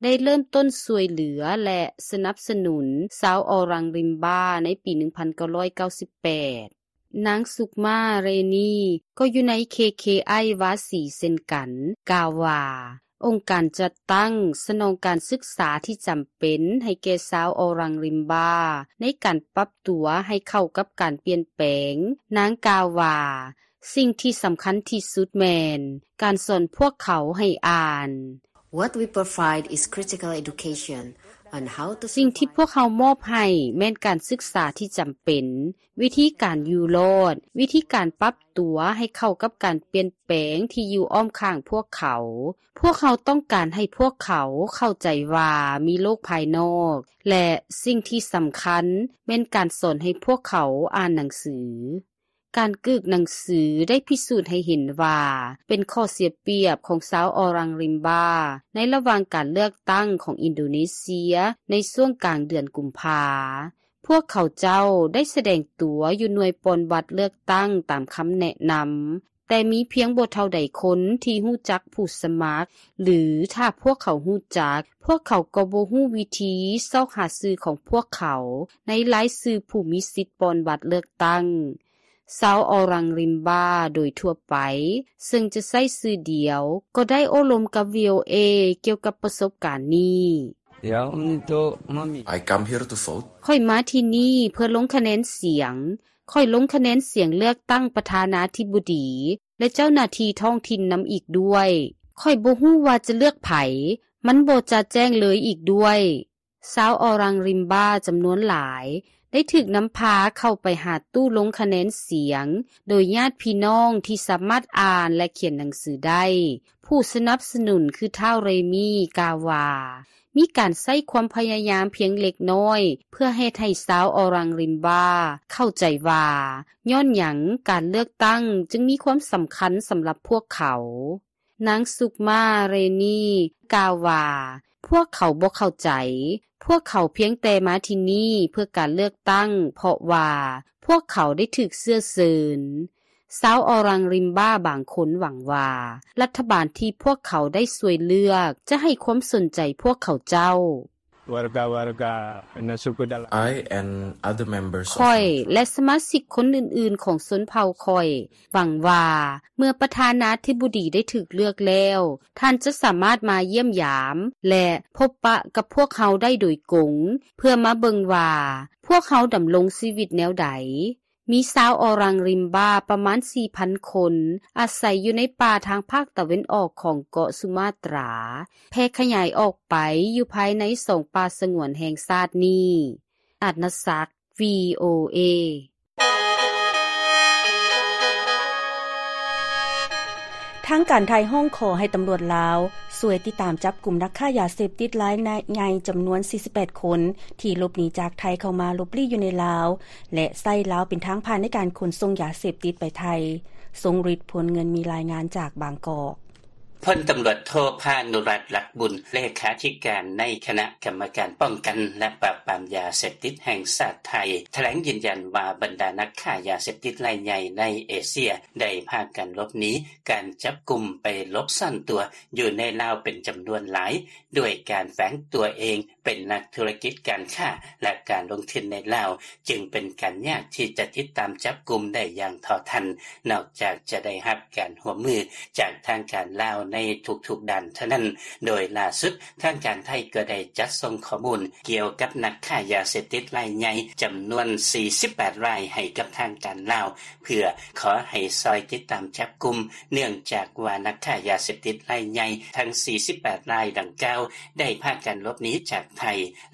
ໄດ້ເລີ່ມຕົ້ນຊ່ວຍເຫຼືອ ແລະ ສະໜັບສະໜູນຊາວ Orang Rimba ໃນປີໜຶ່ງພັນເກົ້າຮ້ອຍເກົ້າສິບແປດ. ນາງ Sukma Reni ກໍຢູ່ໃນ K K I ວາສີເຊັ່ນກັນ, ກ່າວວ່າ ອົງການຈັດຕັ້ງສະໜອງການສຶກສາທີ່ຈຳເປັນໃຫ້ແກ່ຊາວ Orang Rimba ໃນການປັບຕົວໃຫ້ເຂົ້າກັບການປ່ຽນແປງ. ນາງກ່າວວ່າ ສິ່ງທີ່ສຳຄັນທີ່ສຸດແມ່ນການສອນພວກເຂົາໃຫ້ອ່ານ. What we provide is critical education. ສິ່ງທີ່ພວກເຮົາມອບໃຫ້ແມ່ນການສຶກສາທີ່ຈຳເປັນ, ວິທີການຢູ່ລອດ, ວິທີການປັບຕົວໃຫ້ເຂົ້າກັບການປ່ຽນແປງທີ່ຢູ່ອ້ອມຂ້າງພວກເຂົາ. ພວກເຮົາຕ້ອງການໃຫ້ພວກເຂົາເຂົ້າໃຈວ່າມີໂລກພາຍນອກ ແລະ ສິ່ງທີ່ສຳຄັນແມ່ນການສອນໃຫ້ພວກເຂົາອ່ານໜັງສື. ການກຶກໜັງສືໄດ້ພິສູດໃຫ້ເຫັນວ່າເປັນຂໍ້ເສຍປຽບຂອງຊາວອໍລັງລິມບາໃນລະຫວ່າງການເລືອກຕັ້ງຂອງອິນໂດເນເຊຍໃນຊ່ວງກາງເດືອນກຸມພາ. ພວກເຂົາເຈົ້າໄດ້ສະແດງຕົວຢູ່ໜ່ວຍປ່ອນບັດເລືອກຕັ້ງຕາມຄຳແນະນຳ, ແຕ່ມີພຽງບໍ່ເທົ່າໃດຄົນທີ່ຮູ້ຈັກຜູ້ສະໝັກ, ຫຼື ຖ້າພວກເຂົາຮູ້ຈັກ, ພວກເຂົາກໍບໍ່ຮູ້ວິທີຊອກຫາຊື່ຂອງພວກເຂົາໃນລາຍຊື່ຜູ້ມີສິດປ່ອນບັດເລືອກຕັ້ງ. ຊາວອໍລັງລິມບາໂດຍທົ່ວໄປ ເຊິ່ງຈະໃຊ້ຊື່ດຽວ ກໍໄດ້ໂອ້ລົມກັບ ວີໂອເອ ກ່ຽວກັບປະສົບການນີ້. I come here to vote. ຂ້ອຍມາທີ່ນີ້ເພື່ອລົງຄະແນນສຽງ. ຂ້ອຍລົງຄະແນນສຽງເລືອກຕັ້ງປະທານາທິບໍດີ ແລະ ເຈົ້າໜ້າທີ່ທ້ອງຖິ່ນນຳອີກດ້ວຍ. ຂ້ອຍບໍ່ຮູ້ວ່າຈະເລືອກໃຜ, ມັນບໍ່ຈະແຈ້ງເລີຍອີກດ້ວຍ. ຊາວອໍລັງລິມບາຈຳນວນຫຼາຍໄດ້ຖືກນຳພາເຂົ້າໄປຫາຕູ້ລົງຄະແນນສຽງ ໂດຍຍາດພີ່ນ້ອງທີ່ສາມາດອ່ານ ແລະ ຂຽນໜັງສືໄດ້. ຜູ້ສະໜັບສະໜູນຄືທ້າວເຣມີກ່າວວ່າ ມີການໃຊ້ຄວາມພະຍາຍາມພຽງເລັກນ້ອຍ ເພື່ອເຮັດໃຫ້ຊາວອໍລັງລິມບາເຂົ້າໃຈວ່າ ຍ້ອນຫຍັງການເລືອກຕັ້ງຈຶ່ງມີຄວາມສຳຄັນສຳລັບພວກເຂົາ. ນາງສຸກມາ ເຣນີ ກ່າວວ່າ ພວກເຂົາບໍ່ເຂົ້າໃຈ. ພວກເຂົາພຽງແຕ່ມາທີ່ນີ້ເພື່ອການເລືອກຕັ້ງ ເພາະວ່າພວກເຂົາໄດ້ຖືກເຊື້ອເຊີນ. ຊາວອໍລັງລິມບາບາງຄົນຫວັງວ່າ ລັດຖະບານທີ່ພວກເຂົາໄດ້ຊ່ວຍເລືອກຈະໃຫ້ຄວາມສົນໃຈພວກເຂົາເຈົ້າ. I and other members of ຂ້ອຍ ແລະ ສະມາຊິກຄົນອື່ນໆຂອງຊົນເຜົ່າຂ້ອຍ ຫວັງວ່າເມື່ອປະທານາທິບໍດີໄດ້ຖືກເລືອກແລ້ວ, ທ່ານຈະສາມາດມາຢ້ຽມຢາມ ແລະ ພົບປະກັບພວກເຮົາໄດ້ໂດຍກົງ ເພື່ອມາເບິ່ງວ່າພວກເຮົາດຳລົງຊີວິດແນວໃດ. ມີຊາວອໍລັງລິມບາປະມານສີ່ພັນຄົນ ອາໄສຢູ່ໃນປ່າທາງພາກຕາເວັນອອກຂອງເກາະສຸມາຕຣາ, ແຜ່ຂະຫຍາຍອອກໄປຢູ່ພາຍໃນສອງປ່າສະຫງວນແຫ່ງຊາດນີ້. ອາດນະສັກ ວີໂອເອ. ທາງການໄທຮ້ອງຂໍໃຫ້ຕຳຫຼວດລາວຊ່ວຍຕິດຕາມຈັບກຸມນັກຄ້າຢາເສບຕິດລາຍໃຫຍ່ຈຳນວນສີ່ສິບແປດຄົນ ທີ່ຫຼົບໜີຈາກໄທເຂົ້າມາຫຼົບລີ້ຢູ່ໃນລາວ ແລະ ໃຊ້ລາວເປັນທາງຜ່ານໃນການຂົນສົ່ງຢາເສບຕິດໄປໄທ. ຊົງລິດ ພົນເງິນ ມີລາຍງານຈາກບາງກອກ. ພົນຕຳຫຼວດໂທ ພານຸລັດ ລັດບຸນ ເລຂາທິການໃນຄະນະກຳມະການປ້ອງກັນ ແລະ ປາບປາມຢາເສບຕິດແຫ່ງຊາດໄທ ຖະແຫຼງຢືນຢັນວ່າ ບັນດານັກຄ້າຢາເສບຕິດລາຍໃຫຍ່ໃນເອເຊຍ ໄດ້ພາກັນຫຼົບໜີການຈັບກຸມໄປຫຼົບຊ່ອນຕົວຢູ່ໃນລາວເປັນຈຳນວນຫຼາຍ ດ້ວຍການແຝງຕົວເອງເປັນນັກທຸລະກິດການຄ້າ ແລະ ການລົງທຶນໃນລາວ ຈຶ່ງເປັນການຍາກທີ່ຈະຕິດຕາມຈັບກຸມໄດ້ຢ່າງເທົ່າທັນ ນອກຈາກຈະໄດ້ຮັບການຮ່ວມມືຈາກທາງການລາວໃນທຸກໆດ້ານເທົ່ານັ້ນ. ໂດຍລ່າສຸດ ທາງການໄທກໍໄດ້ຈັດສົ່ງຂໍ້ມູນກ່ຽວກັບນັກຄ້າຢາເສບຕິດລາຍໃຫຍ່ຈຳນວນສີ່ສິບແປດລາຍໃຫ້ກັບທາງການລາວ ເພື່ອຂໍໃຫ້ຊ່ອຍຕິດຕາມຈັບກຸມ ເນື່ອງຈາກວ່ານັກຄ້າຢາເສບຕິດລາຍໃຫຍ່ທັງສີ່ສິບແປດລາຍດັ່ງກ່າວ ໄດ້ພາກັນຫຼົບໜີຈາກໄທ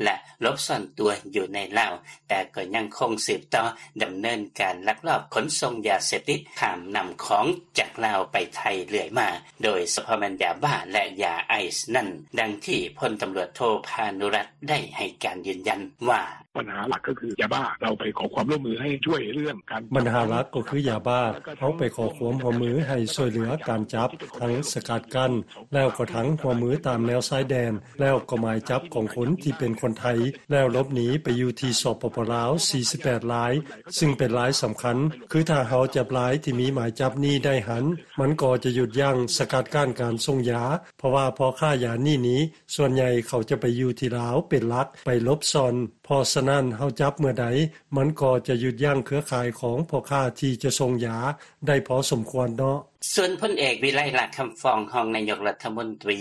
ແລະ ຫຼົບຊ່ອນຕົວຢູ່ໃນລາວ, ແຕ່ກໍຍັງຄົງສືບຕໍ່ດຳເນີນການລັກລອບຂົນສົ່ງຢາເສບຕິດຂ້າມນ້ຳຂອງຈາກລາວໄປໄທເລື້ອຍມາ, ໂດຍສະເພາະແມ່ນຢາບ້າ ແລະ ຢາໄອສ໌ນັ້ນ, ດັ່ງທີ່ພົນຕຳຫຼວດໂທ ພານຸລັດ ໄດ້ໃຫ້ການຢືນຢັນວ່າ ບັນຫາຫຼັກກໍຄືຢາບ້າ ເຮົາໄປຂໍຄວາມຮ່ວມມືໃຫ້ຊ່ວຍເລື່ອງການ ບັນຫາຫຼັກກໍຄືຢາບ້າ ເຮົາໄປຂໍຄວາມຮ່ວມມືໃຫ້ຊ່ວຍເຫຼືອການຈັບ ທັງສະກັດກັ້ນ ແລ້ວກໍທັງຮ່ວມມືຕາມແນວຊາຍແດນ ແລ້ວກໍໝາຍຈັບຂອງຄົນທີ່ເປັນຄົນໄທ ແລ້ວຫຼົບໜີໄປຢູ່ທີ່ ສປປ ລາວ ສີ່ສິບແປດລາຍ ຊຶ່ງເປັນລາຍສຳຄັນ. ຄືຖ້າເຮົາຈັບລາຍທີ່ມີໝາຍຈັບນີ້ໄດ້ຫັ້ນ ມັນກໍຈະຢຸດຢັ້ງສະກັດກັ້ນການສົ່ງຢາ ເພາະວ່າພໍ່ຄ້າຢານີ້ນີ້ ສ່ວນໃຫຍ່ເຂົາຈະໄປຢູ່ທີ່ລາວເປັນຫຼັກ ໄປຫຼົບຊ່ອນ. ເພາະສະນັ້ນ ເຮົາຈັບເມື່ອໃດ ມັນກໍຈະຢຸດຢັ້ງເຄືອຂ່າຍຂອງພໍ່ຄ້າທີ່ຈະສົ່ງຢາໄດ້ພໍສົມຄວນເນາະ. ສ່ວນພົນເອກ ວິໄລ ຫຼ້າຄຳຟອງ ຮອງນາຍົກລັດຖະມົນຕີ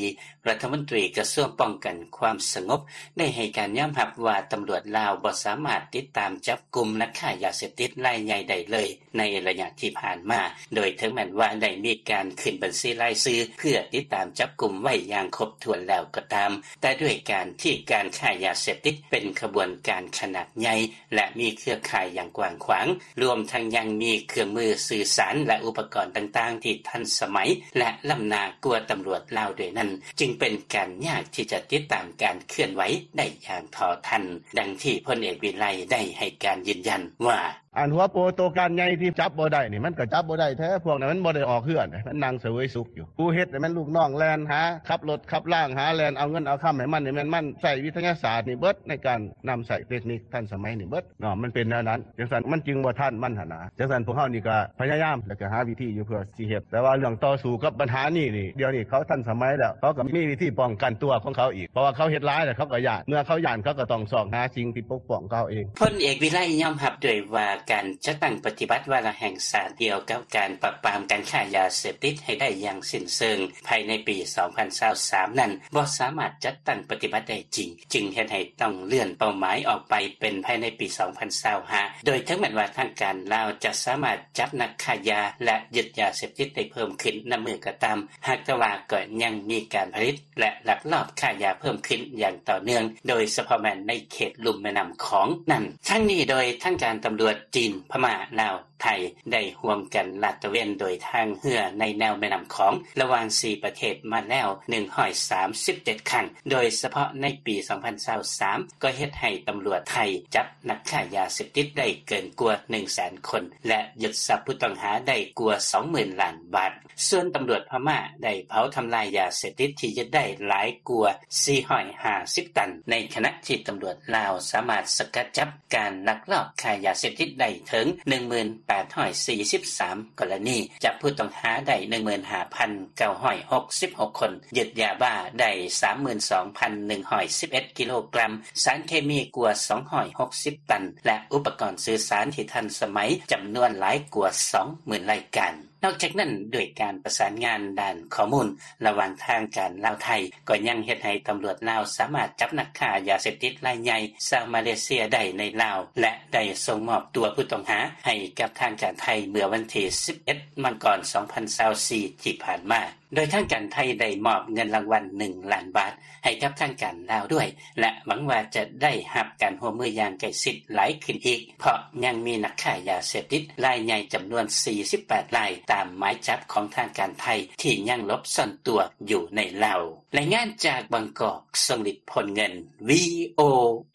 ລັດຖະມົນຕີກະຊວງປ້ອງກັນຄວາມສະຫງົບ ໄດ້ໃຫ້ການຍອມຮັບວ່າ ຕຳຫຼວດລາວບໍ່ສາມາດຕິດຕາມຈັບກຸມນັກຄ້າຢາເສບຕິດລາຍໃຫຍ່ໄດ້ເລີຍ ໃນໄລຍະທີ່ຜ່ານມາ, ໂດຍເຖິງແມ່ນວ່າໄດ້ມີການຂຶ້ນບັນຊີລາຍຊື່ເພື່ອຕິດຕາມຈັບກຸມໄວ້ຢ່າງຄົບຖ້ວນແລ້ວກໍຕາມ, ແຕ່ດ້ວຍການທີ່ການຄ້າຢາເສບຕິດເປັນຂະບວນການຂະໜາດໃຫຍ່ ແລະ ມີເຄືອຂ່າຍຢ່າງກວ້າງຂວາງ, ລວມທັງຍັງມີເຄື່ອງມືສື່ສານ ແລະ ອຸປະກອນຕ່າງໆທີ່ທັນສະໄໝ ແລະ ລ້ຳໜ້າກວ່າຕຳຫຼວດລາວດ້ວຍນັ້ນ, ຈຶ່ງເປັນການຍາກທີ່ຈະຕິດຕາມການເຄື່ອນໄຫວໄດ້ຢ່າງເທົ່າທັນ, ດັ່ງທີ່ພົນເອກ ວິໄລ ໄດ້ໃຫ້ການຢືນຢັນວ່າ: ອັນຫົວໂປໂຕການໃຫຍ່ທີ່ຈັບບໍ່ໄດ້ນີ້ ມັນກໍຈັບບໍ່ໄດ້ແທ້, ພວກນັ້ນມັນບໍ່ໄດ້ອອກເຮືອນ, ມັນນັ່ງສະເຫວີຍສຸກຢູ່. ຜູ້ເຮັດນີ້ແມ່ນລູກນ້ອງແລ່ນຫາ ຂັບລົດຂັບລາງຫາ ແລ່ນເອົາເງິນເອົາຄຳໃຫ້ມັນນີ້ ແມ່ນມັນໃຊ້ວິທະຍາສາດນີ້ເບິດ ໃນການນຳໃຊ້ເຕັກນິກທັນສະໄໝນີ້ເບິດເນາະ, ມັນເປັນແນວນັ້ນ. ຈັ່ງຊັ້ນມັນຈຶ່ງບໍ່ທັນມັນຫັ້ນນະ. ຈັ່ງຊັ້ນພວກເຮົານີ້ກໍພະຍາຍາມ ແລ້ວກໍຫາວິທີຢູ່ເພື່ອຊິເຮັດ, ແຕ່ວ່າເລື່ອງຕໍ່ສູ້ກັບບັນຫານີ້ນີ້ ດຽວນີ້ເຂົາທັນສະໄໝແລ້ວ, ເຂົາກໍມີວິທີປ້ອງກັນຕົວຂອງເຂົາອີກ, ເພາະວ່າເຂົາເຮັດຫຼາຍແລ້ວ ເຂົາກໍຢ້ານ, ເມື່ອເຂົາຢ້ານ ເຂົາກໍຕ້ອງຊອກຫາສິ່ງທີ່ປົກປ້ອງເຂົາເອງ. ພົນເອກ ວິໄລ ຍອມຮັບດ້ວຍວ່າ ການຈັດຕັ້ງປະຕິບັດວາລະແຫ່ງຊາດກ່ຽວກັບການປາບປາມການຄ້າຢາເສບຕິດໃຫ້ໄດ້ຢ່າງສິ້ນເຊີງ ພາຍໃນປີສອງພັນຊາວສາມນັ້ນ ບໍ່ສາມາດຈັດຕັ້ງປະຕິບັດໄດ້ຈິງ, ຈຶ່ງເຮັດໃຫ້ຕ້ອງເລື່ອນເປົ້າໝາຍອອກໄປເປັນພາຍໃນປີສອງພັນຊາວຫ້າ ໂດຍເຖິງແມ່ນວ່າທາງການລາວຈະສາມາດຈັບນັກຄ້າຢາ ແລະ ຍຶດຢາເສບຕິດໄດ້ເພີ່ມຂຶ້ນນຳມື້ກໍຕາມ, ຫາກແຕ່ວ່າກໍຍັງມີການຜະລິດ ແລະ ລັກລອບຄ້າຢາເພີ່ມຂຶ້ນຢ່າງຕໍ່ເນື່ອງ, ໂດຍສະເພາະແມ່ນໃນເຂດລຸ່ມແມ່ນ້ຳຂອງນັ້ນ. ທັງນີ້ໂດຍທາງການຕຳຫຼວດຈີນ, ພະມ້າ, ລາວ, ໄທ ໄດ້ຮ່ວມກັນລາດຕະເວນໂດຍທາງເຮືອໃນແນວແມ່ນ້ຳຂອງ ລະຫວ່າງສີ່ປະເທດມາແລ້ວໜຶ່ງຮ້ອຍສາມສິບເຈັດຄັ້ງ, ໂດຍສະເພາະໃນປີສອງພັນຊາວສາມ ກໍເຮັດໃຫ້ຕຳຫຼວດໄທຈັບນັກຄ້າຢາເສບຕິດໄດ້ເກີນກວ່າໜຶ່ງແສນຄົນ ແລະ ຍຶດຊັບຜູ້ຕ້ອງຫາໄດ້ກວ່າສອງໝື່ນລ້ານບາດ. ສ່ວນຕຳຫຼວດພະມ້າໄດ້ເຜົາທຳລາຍຢາເສບຕິດທີ່ຍຶດໄດ້ຫຼາຍກວ່າສີ່ຮ້ອຍຫ້າສິບຕັນ, ໃນຂະນະທີ່ຕຳຫຼວດລາວສາມາດສະກັດຈັບ ການລັກລອບຄ້າຢາເສບຕິດໄດ້ເຖິງໜຶ່ງໝື່ນແປດຮ້ອຍສີ່ສິບສາມກໍລະນີ, ຈັບຜູ້ຕ້ອງຫາໄດ້ໜຶ່ງໝື່ນຫ້າພັນເກົ້າຮ້ອຍຫົກສິບຫົກຄົນ, ຍຶດຢາບ້າໄດ້ສາມໝື່ນສອງພັນໜຶ່ງຮ້ອຍສິບເອັດກິໂລກຣາມ, ສານເຄມີກວ່າສອງຮ້ອຍຫົກສິບຕັນ ແລະ ອຸປະກອນສື່ສານທີ່ທັນສະໄໝຈຳນວນຫຼາຍກວ່າສອງໝື່ນລາຍການ. ນອກຈາກນັ້ນ, ດ້ວຍການປະສານງານດ້ານຂໍ້ມູນລະຫວ່າງທາງການລາວ-ໄທ, ກໍຍັງເຮັດໃຫ້ຕຳຫຼວດລາວສາມາດຈັບນັກຄ້າຢາເສບຕິດລາຍໃຫຍ່ຊາວມາເລເຊຍໄດ້ໃນລາວ ແລະ ໄດ້ສົ່ງມອບຕົວຜູ້ຕ້ອງຫາໃຫ້ກັບທາງການໄທເມື່ອວັນທີສິບເອັດ ມັງກອນ ສອງພັນຊາວສີ່ ທີ່ຜ່ານມາ. ໂດຍທາງການໄທໄດ້ມອບເງິນລາງວັນໜຶ່ງລ້ານບາດໃຫ້ກັບທາງການລາວດ້ວຍ ແລະ ຫວັງວ່າຈະໄດ້ຮັບການຮ່ວມມືຢ່າງໃກ້ຊິດຫຼາຍຂຶ້ນອີກ, ເພາະຍັງມີນັກຄ້າຢາເສບຕິດລາຍໃຫຍ່ຈຳນວນສີ່ສິບແປດລາຍ ຕາມໝາຍຈັບຂອງທາງການໄທທີ່ຍັງຫຼົບຊ່ອນຕົວຢູ່ໃນລາວ. ລາຍງານຈາກບາງກອກ, ຊົງລິດ ພົນເງິນ, ວີໂອ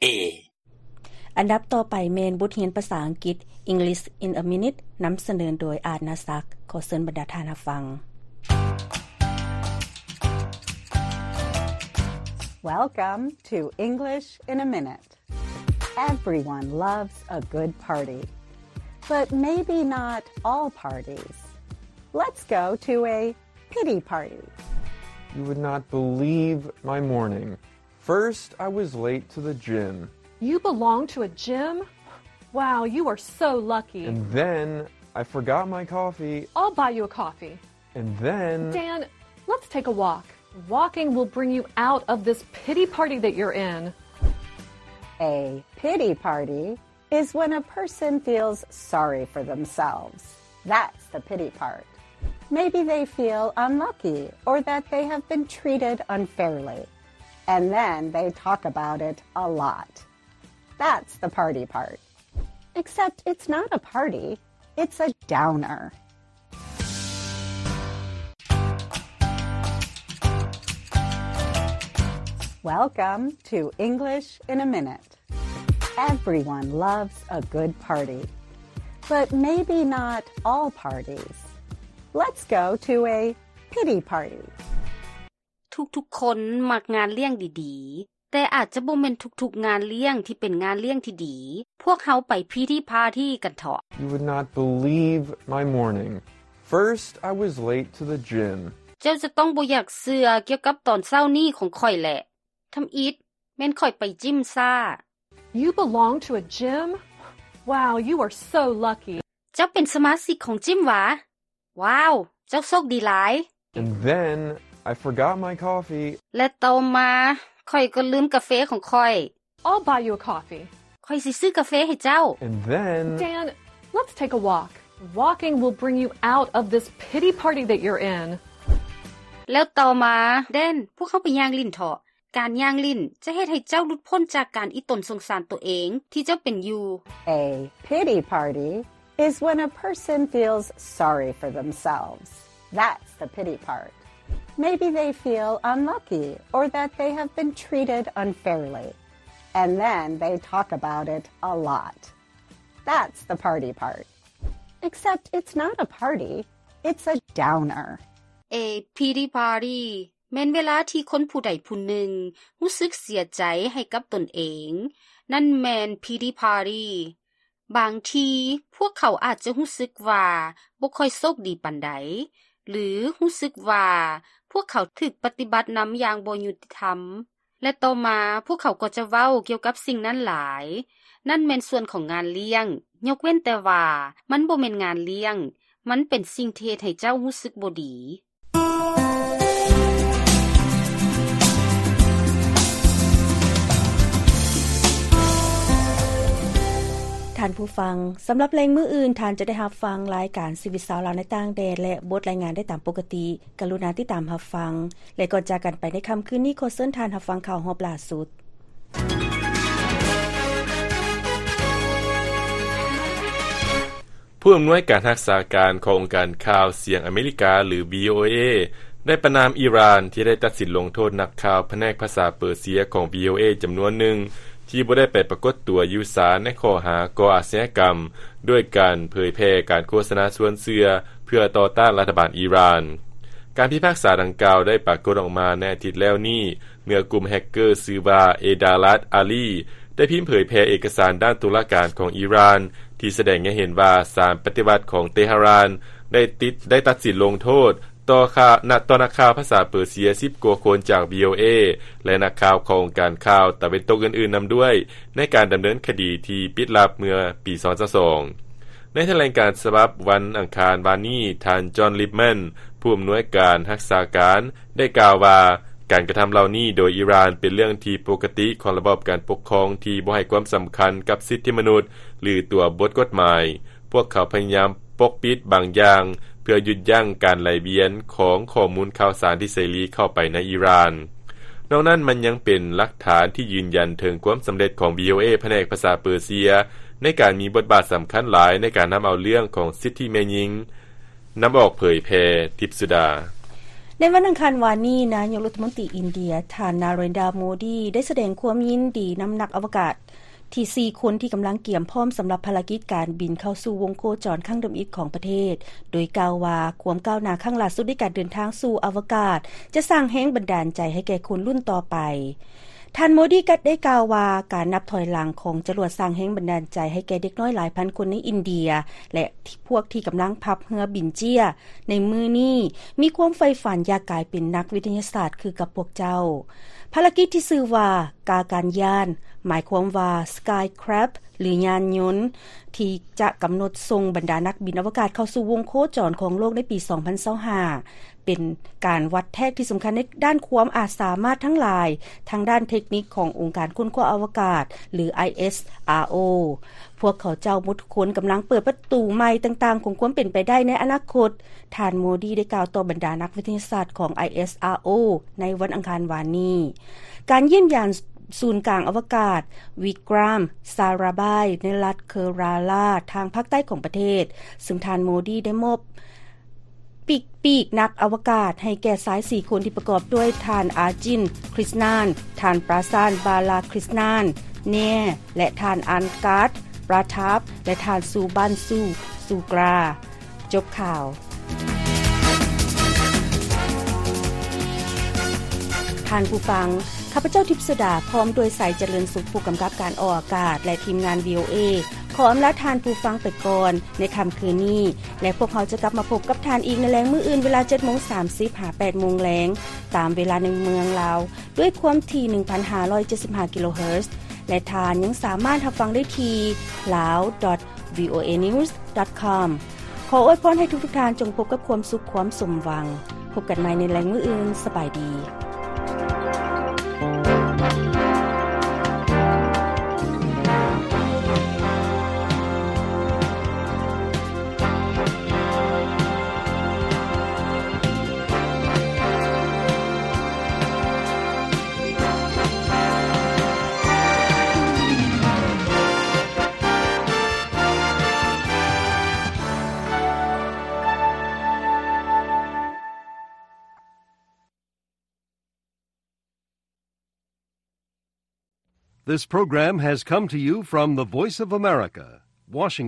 ເອ. ອັນດັບຕໍ່ໄປແມ່ນບົດຮຽນພາສາອັງກິດ English in a Minute ນຳສະເໜີໂດຍ ອາດນາສັກ. ຂໍເຊີນບັນດາທ່ານຮັບຟັງ. Welcome to English in a Minute. Everyone loves a good party, but maybe not all parties. Let's go to a pity party. You would not believe my morning. First, I was late to the gym. You belong to a gym? Wow, you are so lucky. And then I forgot my coffee. I'll buy you a coffee. And then Dan, let's take a walk. Walking will bring you out of this pity party that you're in. A pity party is when a person feels sorry for themselves. That's the pity part. Maybe they feel unlucky or that they have been treated unfairly. And then they talk about it a lot. That's the party part. Except it's not a party, it's a downer. Welcome to English in a Minute. Everyone loves a good party, but maybe not all parties. Let's go to a pity party. ທຸກໆຄົນມັກງານລ້ຽງດີໆ, ແຕ່ອາດຈະບໍ່ແມ່ນທຸກໆງານລ້ຽງທີ່ເປັນງານລ້ຽງທີ່ດີ. ພວກເຮົາໄປພີທີພາທີກັນເຖາະ. You would not believe my morning. First, I was late to the gym. ເຈົ້າຈະຕ້ອງບໍ່ຢາກເຊື່ອກ່ຽວກັບຕອນເຊົ້ານີ້ຂອງຂ້ອຍແຫຼະ. ທຳອິດ, ແມ່ນຂ້ອຍໄປຈິມຊ້າ. You belong to a gym? Wow, you are so lucky. ເຈົ້າເປັນສະມາຊິກຂອງຈິມຫວາ? ວ້າວ! ເຈົ້າໂຊກດີຫຼາຍ. And then I forgot my coffee. ແລະຕໍ່ມາ ຂ້ອຍກໍລືມກາເຟຂອງຂ້ອຍ. I'll buy you a coffee. ຂ້ອຍຊິຊື້ກາເຟໃຫ້ເຈົ້າ. And then Dan, let's take a walk. Walking will bring you out of this pity party that you're in. ແລ້ວຕໍ່ມາ Dan, ພວກເຮົາໄປຍ່າງຫຼິ້ນເຖາະ. ການຍ່າງຫຼິ້ນຈະເຮັດໃຫ້ເຈົ້າຫຼຸດພົ້ນຈາກການອີ່ຕົນສົງສານໂຕເອງທີ່ເຈົ້າເປັນຢູ່. A pity party is when a person feels sorry for themselves. That's the pity part. Maybe they feel unlucky or that they have been treated unfairly. And then they talk about it a lot. That's the party part. Except it's not a party, it's a downer. A pity party ແມ່ນເວລາທີ່ຄົນຜູ້ໃດຜູ້ໜຶ່ງຮູ້ສຶກເສຍໃຈໃຫ້ກັບຕົນເອງ. ນັ້ນແມ່ນ pity party. ບາງທີພວກເຂົາອາດຈະຮູ້ສຶກວ່າບໍ່ຄ່ອຍໂຊກດີປານໃດ ຫຼື ຮູ້ສຶກວ່າພວກເຂົາຖືກປະຕິບັດນຳຢ່າງບໍ່ຍຸຕິທຳ. ແລະຕໍ່ມາພວກເຂົາກໍຈະເວົ້າກ່ຽວກັບສິ່ງນັ້ນຫຼາຍ. ນັ້ນແມ່ນສ່ວນຂອງງານລ້ຽງ, ຍົກເວັ້ນແຕ່ວ່າມັນບໍ່ແມ່ນງານລ້ຽງ, ມັນເປັນສິ່ງທີ່ເຮັດໃຫ້ເຈົ້າຮູ້ສຶກບໍ່ດີ. ທ່ານຜູ້ຟັງ, ສຳລັບແລງມື້ອື່ນ, ທ່ານຈະໄດ້ຮັບຟັງລາຍການຊີວິດຊາວລາວໃນຕ່າງແດນ ແລະ ບົດລາຍງານໄດ້ຕາມປົກກະຕິ. ກະລຸນາຕິດຕາມຮັບຟັງ ແລະ ກ່ອນຈາກກັນໄປໃນຄ່ຳຄືນນີ້, ຂໍເຊີນທ່ານຮັບຟັງຂ່າວຮອບລ່າສຸດ. ຜູ້ອຳນວຍການຮັກສາການຂອງອົງການຂ່າວສຽງອາເມລິກາ ຫຼື ວີໂອເອ ໄດ້ປະນາມອີຣານທີ່ໄດ້ຕັດສິນລົງໂທດນັກຂ່າວພະແນກພາສາເປີເຊຍຂອງ ວີໂອເອ ຈຳນວນໜຶ່ງ ທີ່ບໍ່ໄດ້ໄປປາກົດຕົວຢູ່ສານໃນຂໍ້ຫາກໍ່ອາຊະຍາກຳ ດ້ວຍການເຜີຍແຜ່ການໂຄສະນາຊວນເຊື່ອເພື່ອຕໍ່ຕ້ານລັດຖະບານອີຣານ. ການພິພາກສາດັ່ງກ່າວໄດ້ປາກົດອອກມາໃນອາທິດແລ້ວນີ້ ເມື່ອກຸ່ມແຮັກເກີຊື່ວ່າ ເອດາລັດ ອາລີ ໄດ້ພິມເຜີຍແຜ່ເອກະສານດ້ານຕຸລາການຂອງອີຣານ ທີ່ສະແດງໃຫ້ເຫັນວ່າສານປະຕິວັດຂອງເຕຫະຣານໄດ້ຕິດ ໄດ້ຕັດສິນລົງໂທດ ຕໍ່ຂ່າວ ນະ ຕໍ່ນັກຂ່າວພາສາເປີເຊຍສິບກວ່າຄົນຈາກ ວີໂອເອ ແລະ ນັກຂ່າວຂອງອົງການຂ່າວຕາເວັນຕົກອື່ນໆນຳດ້ວຍ ໃນການດຳເນີນຄະດີທີ່ປິດລັບເມື່ອປີສອງພັນຊາວສອງ. ໃນຖະແຫຼງການສະບັບວັນອັງຄານວານນີ້, ທ່ານ ຈອນ ລິບແມນ ຜູ້ອຳນວຍການຮັກສາການ ໄດ້ກ່າວວ່າ ການກະທຳເຫຼົ່ານີ້ໂດຍອີຣານເປັນເລື່ອງທີ່ປົກກະຕິຂອງລະບອບການປົກຄອງທີ່ບໍ່ໃຫ້ຄວາມສຳຄັນກັບສິດທິມະນຸດ ຫຼື ຕົວບົດກົດໝາຍ. ພວກເຂົາພະຍາຍາມປົກປິດບາງຢ່າງ ເພື່ອຢຸດຢັ້ງການໄຫຼວຽນຂອງຂໍ້ມູນຂ່າວສານທີ່ເສລີເຂົ້າໄປໃນອີຣານ. ນອກນັ້ນມັນຍັງເປັນຫຼັກຖານທີ່ຢືນຢັນເຖິງຄວາມສຳເລັດຂອງ ວີໂອເອ ພະແນກພາສາເປີເຊຍ ໃນການມີບົດບາດສຳຄັນຫຼາຍໃນການນຳເອົາເລື່ອງຂອງສິດທິແມ່ຍິງ ນຳອອກເຜີຍແຜ່. ທິບສຸດາ. ໃນວັນອັງຄານວານນີ້, ນາຍົກລັດຖະມົນຕີອິນເດຍ ທ່ານ ນາເຣນດາ ໂມດີ ໄດ້ສະແດງຄວາມຍິນດີນຳນັກອະວະກາດ ທີ່ສີ່ຄົນທີ່ກຳລັງກຽມພ້ອມສຳລັບພາລະກິດການບິນເຂົ້າສູ່ວົງໂຄຈອນຄັ້ງທຳອິດຂອງປະເທດ, ໂດຍກ່າວວ່າຄວາມກ້າວໜ້າຄັ້ງຫຼ້າສຸດໃນການເດີນທາງສູ່ອະວະກາດ ຈະສ້າງແຮງບັນດານໃຈໃຫ້ແກ່ຄົນລຸ້ນຕໍ່ໄປ. ທ່ານໂມດີກໍໄດ້ກ່າວວ່າ ການນັບຖອຍຫຼັງຂອງຈະຫຼວດສ້າງແຮງບັນດານໃຈໃຫ້ແກ່ເດັກນ້ອຍຫຼາຍພັນຄົນໃນອິນເດຍ ແລະ ພວກທີ່ກຳລັງພັບເຮືອບິນເຈ້ຍໃນມື້ນີ້ ມີຄວາມໃຝ່ຝັນຢາກກາຍເປັນນັກວິທະຍາສາດຄືກັບພວກເຈົ້າ. ພາລະກິດທີ່ຊື່ວ່າ ກາການຍານ ໝາຍຄວາມວ່າ Skycraft ຫຼື ຍານຍົນ ທີ່ຈະກຳນົດສົ່ງບັນດານັກບິນອະວະກາດເຂົ້າສູ່ວົງໂຄຈອນຂອງໂລກໃນປີສອງພັນຊາວຫ້າ ເປັນການວັດແທກທີ່ສຳຄັນໃນດ້ານຄວາມອາດສາມາດທັງຫຼາຍທາງດ້ານເທັກນິກຂອງອົງການຄົ້ນຄວ້າອະວະກາດ ຫຼື ໄອເອສອາໂອ. ພວກເຂົາເຈົ້າໝົດທຸກຄົນກຳລັງເປີດປະຕູໃໝ່ຕ່າງໆຂອງຄວາມເປັນໄປໄດ້ໃນອະນາຄົດ. ທ່ານໂມດີໄດ້ກ່າວຕໍ່ບັນດານັກວິທະຍາສາດຂອງ ໄອເອສອາໂອ ໃນວັນອັງຄານວານນີ້. ການຢ້ຽມຢາມສູນກາງອະວະກາດ ວິກຣາມ ຊາຣາບາຍ ໃນລັດເຄີຣາລາ ທາງພາກໃຕ້ຂອງປະເທດ, ເຊິ່ງທ່ານໂມດີໄດ້ມອບປີກ ປີກນັກອະວະກາດໃຫ້ແກ່ຊາຍສີ່ຄົນທີ່ປະກອບດ້ວຍທ່ານ ອາຈິນ ຄຣິສນານ, ທ່ານ ປຣາຊານ ບາລາຄຣິສນານ ແນ ແລະ ທ່ານ ອັນກາດ ປຣາທາບ ແລະ ທ່ານ ຊູບັນ ຊູ ຊູກຣາ. ຈົບຂ່າວ. ທ່ານຜູ້ຟັງ, ຂ້າພະເຈົ້າ ທິບສຸດາ ພ້ອມດ້ວຍ ໄຊຈະເລີນສຸກ ຜູ້ກຳກັບການອອກອາກາດ ແລະ ທີມງານ ວີໂອເອ ຂໍອຳລາທ່ານຜູ້ຟັງໄປກ່ອນໃນຄ່ຳຄືນນີ້ ແລະ ພວກເຮົາຈະກັບມາພົບກັບທ່ານອີກໃນແລງມື້ອື່ນ ເວລາເຈັດໂມງສາມສິບ ຫາ ແປດໂມງແລງ ຕາມເວລາໃນເມືອງລາວ ດ້ວຍຄວາມຖີ່ ໜຶ່ງພັນຫ້າຮ້ອຍເຈັດສິບຫ້າ ກິໂລເຮີດ ແລະ ທ່ານຍັງສາມາດຮັບຟັງໄດ້ທີ່ ลາວ ດອດ ວີໂອເອ ນິວສ໌ ດອດ ຄອມ. ຂໍອວຍພອນໃຫ້ທຸກໆທ່ານຈົ່ງພົບກັບຄວາມສຸກຄວາມສົມຫວັງ. ພົບກັນໃໝ່ໃນແລງມື້ອື່ນ. ສະບາຍດີ. This program has come to you from the Voice of America, Washington.